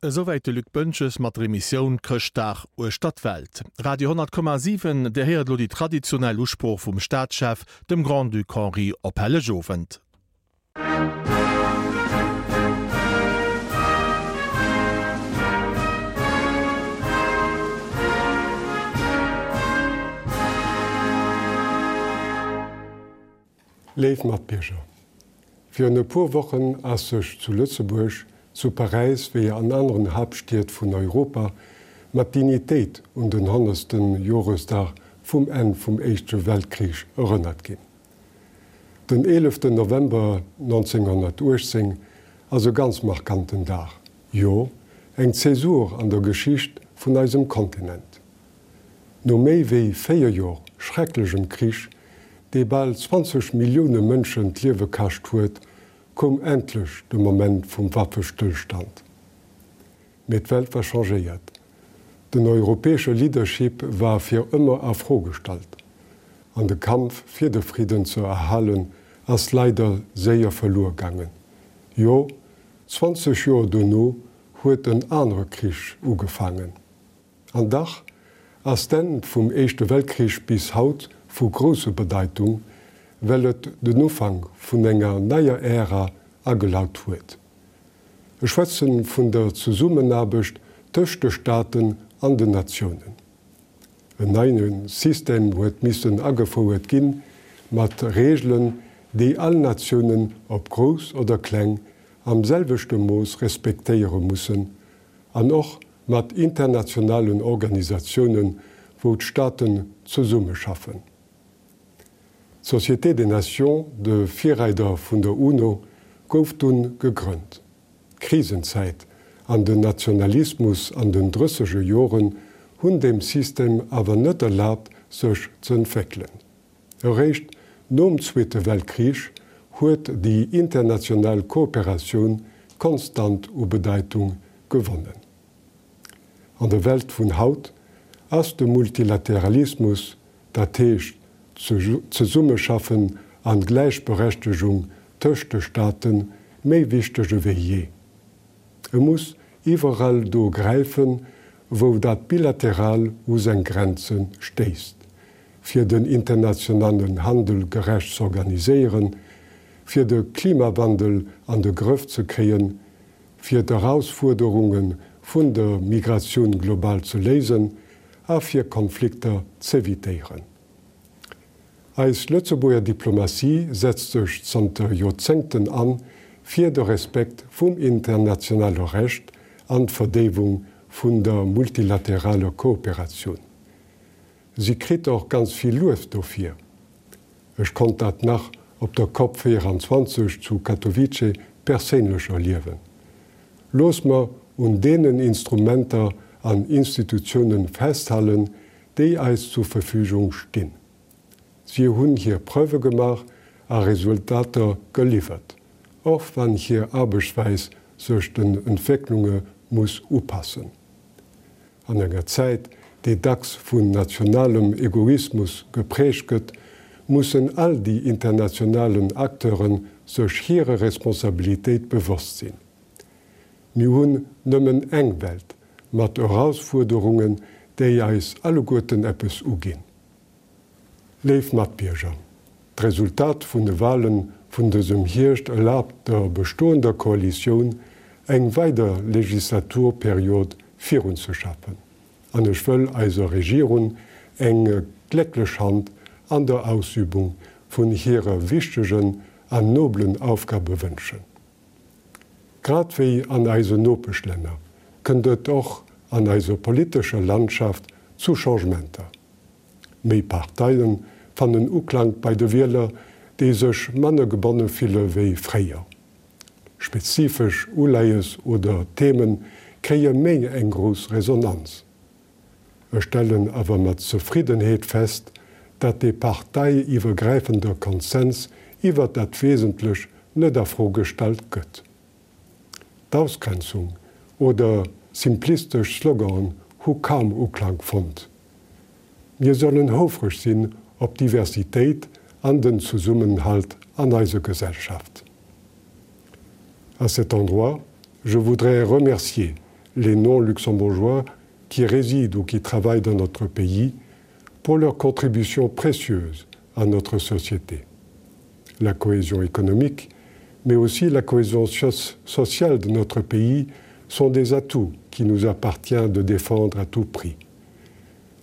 Esouwäit de Luc Boentges mat der Emissioun Chrëschtdag uechter d'Welt. Radio 10,7, Dir héiert elo déi traditionell Usprooch vum Staatschef, dem Grand-Duc Henri, op Hellegowend. Léif Matbierger, virun e puer Wochen ass sech zu Lëtzebuerg, zu Paräis wéi an aneren Haaptstied vun Europa mat Dignitéit un den honnertste Joresdag vum Enn vum Éischte Weltkrich erënnert ginn. Den eeleften November 1918 ass e ganz markanten Dag, jo eng Zäsur an der Geschicht vun eisem Kontinent. No méi wéi 4 Jor schrecklechem Krich, dee bal 20 Millioune Mënschen d'Liewe kascht huet, koum endlech de Moment vum Waffestëllstand. Mee d'Welt war changéiert. Den europäesche Leadership war fir ëmmer a Fro gestallt. An de Kampf fir de Fridden ze erhalen ass leider séier verluer gaangen. Jo, 20 Joer dono huet en anere Krich ugefaangen. An dach ass d'Enn vum Éischte Weltkrich bis haut vu grousser Bedeitung, well et den Ufank vun enger neier Ära agelaut huet. Ech schwätze vun der Zesummenaarbecht tëscht de Staaten an den Natiounen. En neie System huet missen agefouert ginn, mat Reegelen, déi all Natiounen, ob grouss oder kleng, am selwechte Mooss respektéiere mussen, an och mat internationalen Organisatiounen, wou d'Staaten zesummeschaffen. D'Société des Nations, de Virreider vun der UNO, gouf dunn gegrënnt. D'Krisenzäit an den Nationalismus an den drësseger Joren hunn deem System awer net erlaabt, sech z'entwéckelen. Eréischt nom Zweete Weltkrich huet déi international Kooperatioun konstant u Bedeitung gewonnen. An der Welt vun haut ass de Multilateralismus, dat heescht d'Zesummeschaffen an d'Gläichberechtegung tëscht de Staaten, méi wichteg ewéi jee. E muss iwwerall do gräifen, wou dat Bilateral u seng Grenze stéisst, fir den internationalen Handel gerecht z'organiséieren, fir de Klimawandel an de Grëff ze kréien, fir d'Erausfuerderunge vun der Migratioun global ze léisen a fir Konflikter z'evitéieren. Eis Lëtzebuerger Diplomatie setzt sech zanter Joerzéngten an fir de Respekt vum internationale Recht an d'Verdéiwung vun der multilateraler Kooperatioun. Si kritt och ganz vill Luef dofir. Ech konnt dat nach op der Cop 24 zu Katowice perséinlech erliewen. Looss mer un deenen Instrumenter an Institutiounen festhalen, déi eis zur Verfügung stinn. Si hunn hir Preuve gemaach a Resultater geliwwert, och wann hir Aarbechtsweis sech den Entwécklunge muss upassen. An enger Zäit, déi dacks vun nationalem Egoismus geprägt gëtt, mussen all déi internationalen Acteure sech hire Responsabilitéit bewosst sinn. Mir hunn nëmmen eng Welt, mat Erausfuerderungen, déi eis alleguerten eppes uginn. Léif Matbierger, d'Resultat vun de Wahlen vun dësem Hierscht erlaabt der bestoender Koalitioun eng weider Legislaturperiod virunzeschaffen an ech wëll eiser Regierung eng glécklech Hand an der Ausübung vun hirer wichtegen an noblen Aufgabe wënschen. Grad wéi an eisen Nopeschlänner kënnt et och an eiser politescher Landschaft zu Changementer. Méi Parteie fannen Uklank bei de Wieler, déi sech manner gebonne fille wéi fréier. Spezifesch Uleies oder Theme kréie méi eng grouss Resonanz. Ech stellen awer mat Zefriddenheet fest, dat dee parteiiwwergräifende Konsens iwwert dat Wesentlech net a Fro gestallt gëtt. D'Ausgrenzung oder simplistesch Sloganen hu kaum Uklank fonnt. Mir sollen houfreg sinn op d'Diversitéit an den Zesummenhalt an eiser Gesellschaft. À cet endroit, je voudrais remercier. les non-luxembourgeois qui résident ou qui travaillent dans notre pays pour leur contribution précieuse à notre société. La cohésion économique, mais aussi la cohésion sociale de notre pays sont des atouts qui nous appartient de défendre à tout prix.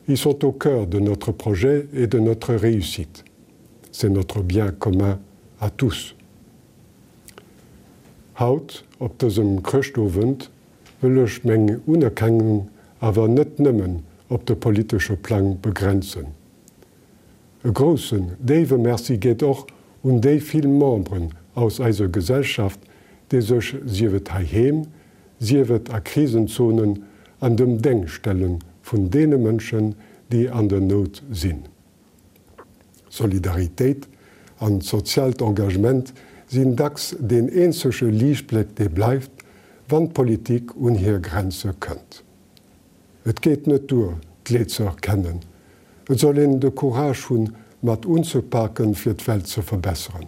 Ils sont au cœur de notre projet et de notre réussite. C'est notre bien commun à tous. Haut, op dësem Chrëschtowend, wëll ech meng Unerkennung awer net nëmmen op de politesche Plang begrenzen. E groussen, déiwe Merci geet och un déi vill Memberen aus eiser Gesellschaft, déi sech, sief et heiheem, sief et a Krisenzonen, an dem Déngscht stelle vun deene Mënschen, déi an der Nout sinn. Solidaritéit an soziaalt Engagement sinn dacks deen eenzege Liichtbléck dee bleift, wann d'Politik un hir Grenze kënnt. Et geet net duer, d'Leed ze erkennen, et soll een de Courage hunn, mat unzepaken, fir d'Welt ze verbesseren.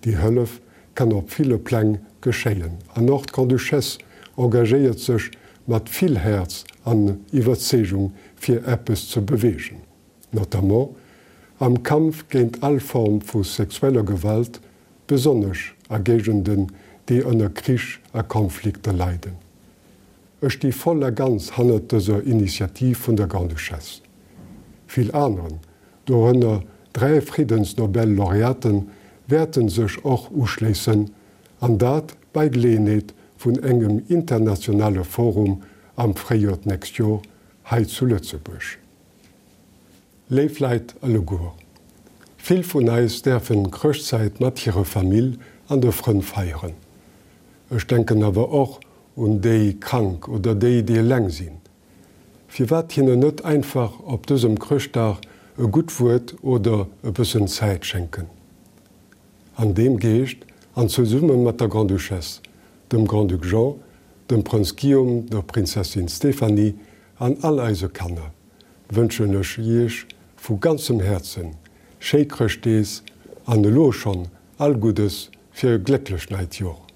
Déi Hëllef kann op ville Pläng geschéien an och d'Grande-Duchesse engagéiert sech mat vill Häerz an Iwwerzeegung fir eppes ze beweegen, notamment am Kampf géint all Form vu sexueller Gewalt, besonnesch a Géigenden, déi ënner Krich a Konflikter leiden. Ech sti voll a ganz hannert dëser Initiativ vun der Grande-Duchesse. Vill aneren, dorënner 3 Friddensnobel-Laureaten, wäerten sech och uschléissen, an dat bei Geleeënheet vun engem internationale Forum am Fréijoer d'nächst Jor hei zu Lëtzebuerg. Léif Leit alleguer, vill vun eis däerfen Chrëschtzäit mat hirer Famill an de Frënn feieren. Ech denken awer och un déi Krank oder déi, déi eleng sinn. Firwat hinnen net einfach op dësem Chrëschtdag e gutt Wuert oder e bëssen Zäit schenken? An deem Geescht an zesumme mat der Grande-Duchesse, dem Grand-Duc Jean, dem Prënz Guillaume, der Prinzessin Stéphanie an all eise Kanner wënschen ech Iech vu ganzem Häerzen schéi Chrëschtdees an elo schonn all Guddes fir e glécklecht neit Jor.